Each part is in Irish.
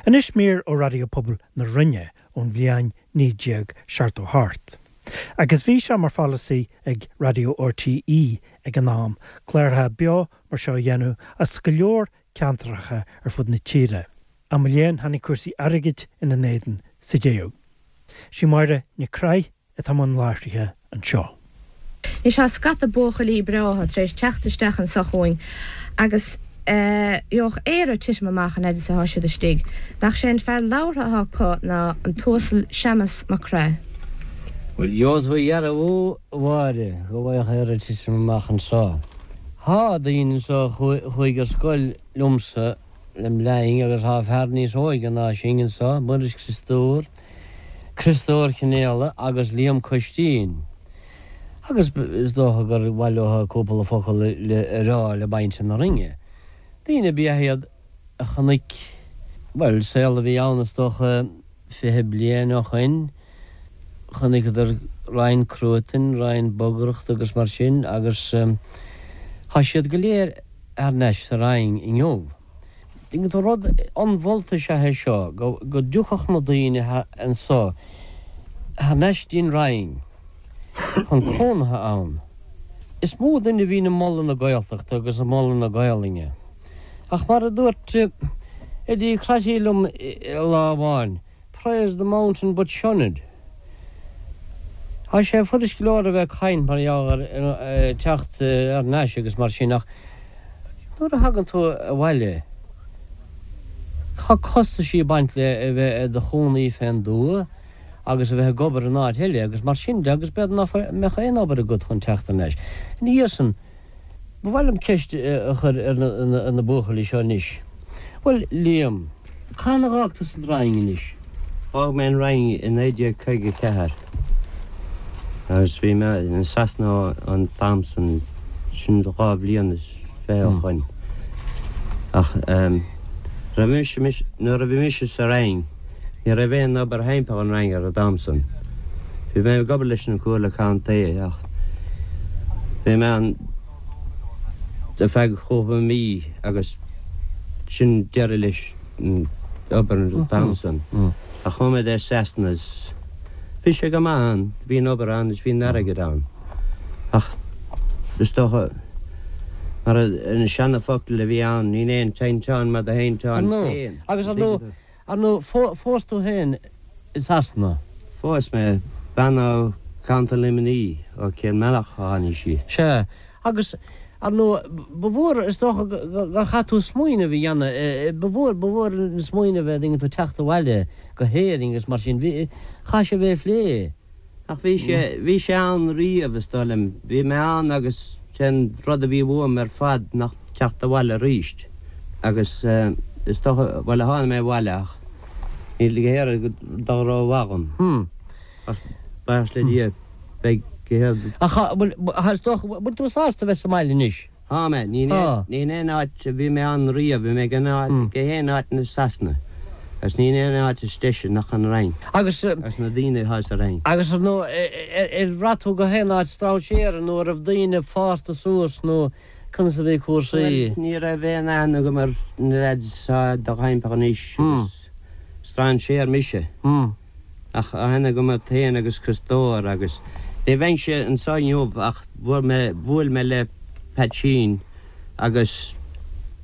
Anois mír ó Raidió Pobail na Rinne ón bhliain 1978. Agus bhí sé mar pholasaí ag Raidió RTÉ ag an am cláracha beo mar seo a dhéanamh as go leor ceantracha ar fud na tíre. Ach mo léan tháinig cúrsaí airgid ina n-éadan sa deireadh. Sí Máire Nic Craith atá i mbun láithrithe anseo. Anois tá scata buachaillí breátha tar éis teacht isteach anso chugainn agus gheobhadh Éire titim amach an fhad is atá siad istigh. Nach sé an fear labhartha atá acu ná an tUasal Séamas Mac Craith. Bhuel, gheobhaidh tú a dhearbhú, a Mháire, go bhfaigheadh Éire titim amach anso. Tá daoine anso a chuaigh ar scoil liomsa lem linn agus tá fear níos óige ná sinn anso, Muiris Criostóir, Criostóir Cionnaola agus Liam Coistín. Agus is dócha gur mhaith leo cúpla focal a rá le muintir na Rinne. Daoine ab ea iad a chonaic, bhuel, saol a bhí ann is dócha 20 bliain ó shoin, chonaiceadar roinnt cruatain, roinnt bogaireachta agus mar sin agus tá siad go léir thar n-ais sa Rinn inniu. Tuigeann tú, rud ionmholta is ea é seo, go dtiocfadh na daoine anso thar n-ais dtí'n Rinn chun cónaithe ann. Is mó duine a bhíonn ag moladh na Gaeltachta agus ag moladh na Gaolainne. Ach mar a dúirt Eddie Crotty liom lá amháin, Praise the mountain but shun it. Tá sé fuirist go leor a bheith ag caint mar gheall ar teacht thar n-ais agus mar sin ach nuair a thagann tú abhaile tá costaisí ag baint le a bheith i do chónaí fén dtuath agus a bheith ag obair in áit eile agus mar sin de agus b'fhéidir nach mbeadh aon obair agat chun teacht thar n-ais. Ina dhiaidh san, Ba mhaith liom ceist a chur ar na buachaillí seo anois. Bhuel, Liam, cathain a dh'fhág tusa an Rinn anois? D'fhág mé an Rinn i 1954 agus bhí mé i Sasana an t-am san, sin dhá bhliain is fiche ó shoin. Ach raibh mise, nuair a bhí mise sa Rinn, ní raibh aon obair thimpeall an Rinn ar an t-am san. Bhí mé ag obair leis an Comhairle Contae ach bhí mé ann ar feadh chúpla mí agus sin deireadh leis an obair an t-am san. Ach chuaigh mé dtí Sasana is bhí sé go maith ann, bhí an obair ann is bhí an airgead ann. Ach is dócha mar an seana-focal a bhí ann, níl aon tinteán mar do thinteán féin. Agus ar ndóigh, Ar ndóigh, phós tú féin i Sasana? Phós mé bean ó Contae Luimnigh, ó Cill Mealach a tháinig sí. Sea. Agus, ar ndóigh, ba mhór, is dócha, gur chaith tú smaoineamh a dhéanamh, ba mhór, ba mhór an smaoineamh é, an dtuigeann tú, teacht abhaile go hÉirinn agus mar sin. Bhí, chaith sé a bheith ag plé. Ach bhí sé, bhí sé ann riamh, is dóigh liom. Bhí mé ann agus sé'n rud a bhí uaim ar fad nach teacht abhaile aríst. Agus is dócha, bhuel, tháinig mé abhaile ach níl go hÉirinn dul rómhaith dhom. Ach buíochas le Dia, beidh go hÉirinn. Ach, bhuel, is dócha, bhfuil tú sásta a bheith sa mbaile anois? Tá mé. Ní in aon áit a bhí mé ann riamh. Bhí mé gach aon áit i Sasana agus ní in aon áit is deise nach an Rinn agus na daoine atá sa Rinn. Agus ar ndóigh, ar bhraith tú go haon áit strainséara nó an raibh daoine fásta suas nó conas a bhí cúrsaí? Bhuel, ní raibh aon aithne agam ar na lads atá i do thimpeall anois agus strainséir mise. Ach aithne agam ort féin agus Criostóir agus ní bheinnse anso inniu ach bhuail mé, bhuail mé le Peaitsín agus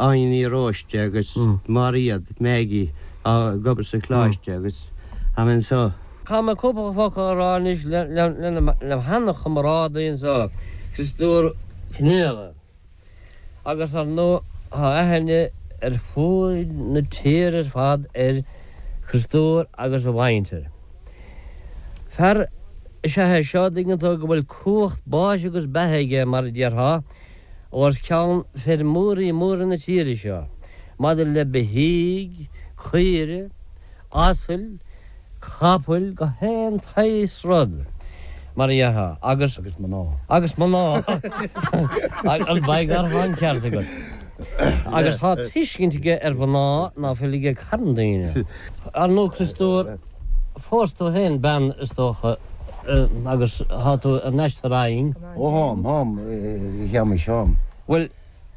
Áine Ní Róiste agus Máiréad, Maggie, atá ag obair sa choláiste agus tá mé anso. Caithfidh mé cúpla focal a rá anois le sheana-chomrádaí anso, Criostóir Cionnaola. Agus ar ndóigh tá aithne ar fuaid na tíre ar fad ar Chriostóir agus a mhuintir. Fear is ea é seo, an dtuigeann tú, go bhfuil cumhacht báis agus beatha aige, mar a déarfá, os cionn feirmeoirí móra na tíre seo, maidir le beithígh, caoire, asail, capaill, gach aon tsaghas rud, mar a dhéarfá, agus. Agus mná. Agus mná. An beidh gar tá an ceart agat. Agus tá tuiscint aige ar mhná ná fuil ag carn daoine. Ar ndóigh, Criostóir, phós tú féin bean, is dócha, agus tá tú thar n-ais sa Rinn. Ó tháim, tháim, a Shéamais, tháim. Bhuel.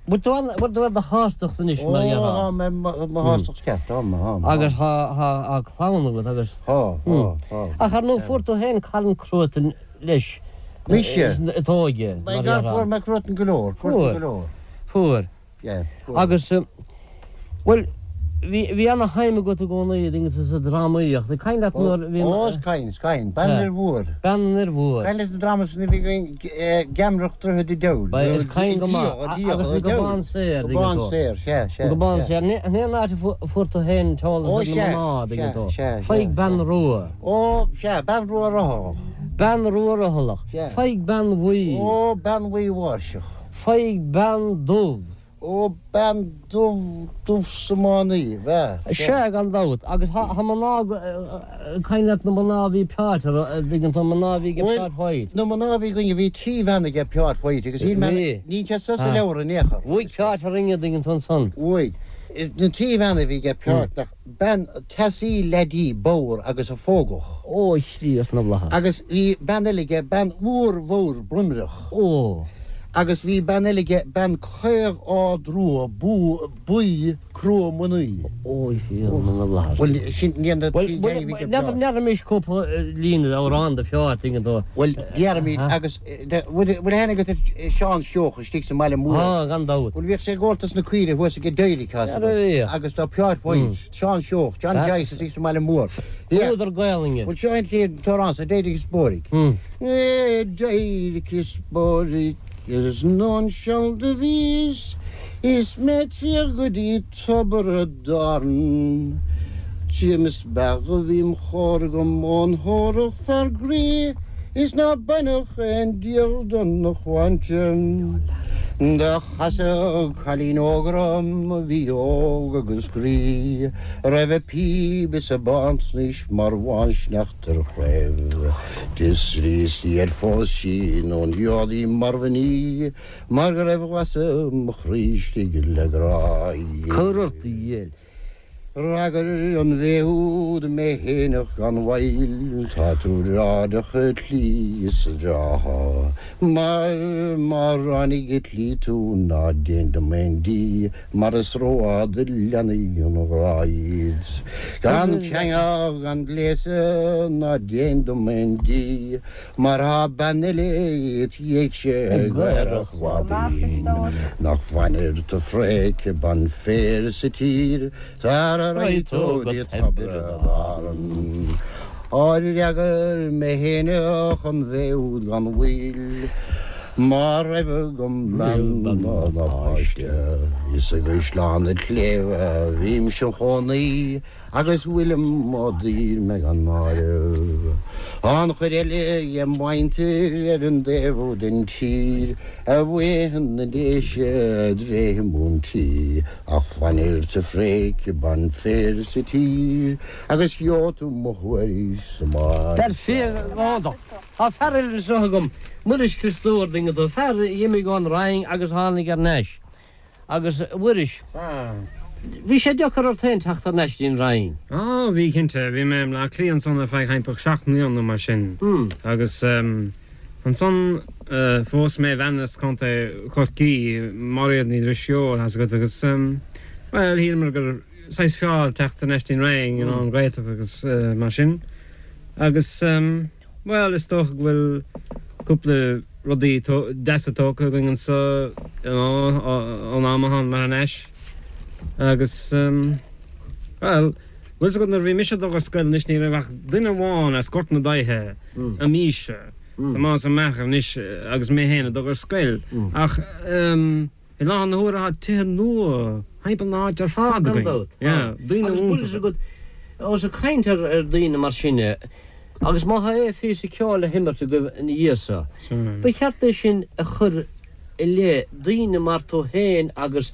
Bhfuil tú an, bhfuil tú ar do shástacht anois mar a déarfá? Ó, tá mé mo shástacht ceart, tá, tá. Agus tá, tá, tá clann agat agus. Tá, tá, tá. Ach ar ndóigh fuair tú féin carn cruatain leis. Mise? I d'óige, mar a déarfá. Fuair mé cruatan go leor, fuair go leor. Fuair. Agus, bhuel, bhí, bhí ana-shuim agat i gcónaí sa drámaíocht. Ag caint leat nuair a bhí. Ó, is cuimhin, is cuimhin. Bean an Fhir Mhóir. Bean an Fhir Mhóir. Cuimhin leat an dráma san a bhí againn, Geamaireacht Droichead an Diabhail. Ba, is cuimhin go maith. Agus an Gobán Saor, tuigeann tú. Gobán Saor, sea, sea. An Gobán Saor. Ní an áit a fuair tú féin an t-eolas ar na mná, tuigeann tú. Faigh bean rua. Ó, sea, bean rua rothalach. Bean rua rothalach. Faigh bean bhuí. Ó, bean bhuí mháirseach. Faigh bean dubh. Ó, bean dubh, dubh 's iománaí, bhea, sea. Sea, gan dabht. Agus thá mná, cuimhin leat na mná a bhí Peáit, a dtuigeann tú, mná a bhí ag Peáit White. Na mná a bhí againne, bhí 3 bhean aige Peáit White agus shíl mé, níl sé sa leabhar in aon chor. Bhuaigh Peáit orainne, a dtuigeann tú ansan. Bhuaigh. Na 3 bhean a bhí aige Peáit, nach, bean teasaí leaidí bodhar agus a phógadh. Ó, a Chríost na bhFlaitheas. Agus bhí bean eile aige, bean mhór bhodhar broimreach. Ó. Agus bhí bean eile aige, bean caoch ard rua, buí, crua mnaoi. Ó, a Thiarna na bhFlaitheas. Bhuel, sin iad na trí ghein a bhí aige Peáit. N'fheadar cúpla líne d'amhrán de Pheáit, tuigeann tú. Bhuel, déarfaimid, agus bhfuil aithne agat ar Seán Seoighe istigh sa mbaile mór? Tá, gan dabht. Bhuel, bhíodh sé ag óltas na caoire thuas ag Derek, tá 's agat. Agus tá Peáit White, Seán Seoighe, John Joyce istigh sa mbaile mór. Údar Gaelainne. Bhuel, seo an t-amhrán sa D'éirigh is Bóirigh. D'éirigh is bóirigh is anonn seal do bhíos is mé triall go dtí tobar a dTarann. Tchím is beag a bhí im chóir agam ón thórach fear groí is ná bainfeadh aon díol do na shláinte. Do chasadh cailín óg orm a bhí óg agus groí a raibh a píb is a bántsnaois mar bhánsneachta ar chraobh. D'fhiosraíos di ar phós sí nó an í mar mhnaoi mar go raibh lasadh mo chroí istigh le grá. Cuir ort a dhil. D'fhreagair an bhé úd mé fhéineach gan mhoill, Tá tú airdeach a tslí is a dtrátha, mar má ráinig i tslí tú ná déan dom aon díth, mar is rófhada leanfaidh an ghrá iad. Gan ceangal gan gléasadh ná déan dom aon díth, Mar thá bean eile it dhiaidhse ag aerach mhaidin Nach bhfanfair tu fréic ban féir sa tír Sara raghaidh tú go dtí tobar Árann Á d'fhreagair mé fhéineach an bhé úd gan mhoill Má raibh agam bean ná páiste Is i gCaisleán an tSléibhe a bhímse im chónaí Agus fuilim á daor mé gan áireamh. An chuid eile dhem mhuintir ar an dtaobh úd den tír, a bhuidhe na Déise a dtréithe múintí, ach fanfair sa phréic ban féir sa tír, agus gheobhaidh tú mo thuairisc sa mbaile. Dar fia, iontach. Tá fear eile anseo agam, Muiris Criostóir, tuigeann tú, fear a dh'imigh ón Rinn agus a tháinig thar n-ais. Agus, a Mhuiris, bhí sé deacair ort féin teacht thar n-ais dtí'n Rinn? Á, bhí, cinnte. Bhí mé i mBleá Cliath ansan ar feadh thimpeall 7 mbliana nó mar sin. Agus ansan phós mé bean as Contae Chorcaí, Máiréad Ní Drisceoil, thá's agat, agus, bhuel, shíleamar gur saghas fearr teacht thar n-ais dtí'n Rinn, you know, an Ghaeltacht agus mar sin. Agus. Bhuel, is dócha go bhfuil cúpla rudaí deasa tógtha againn anseo, you know, ón am a thánamar thar n-ais. Agus, bhuel, bhfuil 's agat nuair a bhí mise ag dul ar scoil anois ní raibh ach duine amháin as Gort na Daighthe i m'aois-se, Tomás Ó Meachair anois agus mé féin ag dul ar scoil. Ach, I láthair na huaire tá tithe nua thimpeall na háite ar fad againn. Gan dabht. Yeah, daoine Agus bhfuil 'fhios agat, ós ag caint ar ar daoine mar sin é, agus má tá aon phíosa ceoil le himirt agaibh ina dhiaidh so, ba cheart é sin a chur i leith daoine mar tú féin agus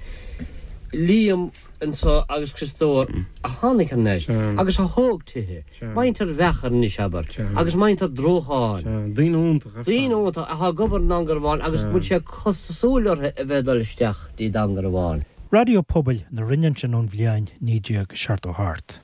Liam anso agus Criostóir a tháinig thar n-ais agus a thóg tithe, muintir Mheachair anois, abair, agus muintir Drócháin. Daoine iontacha ar fad. Daoine iontacha atá ag obair i nDún Garbhán agus go bhfuil sé costasúil orthu a bheith ag dul isteach dtí Dún Garbhán. Raidió Pobail na Rinne ansin ón bhliain 1978.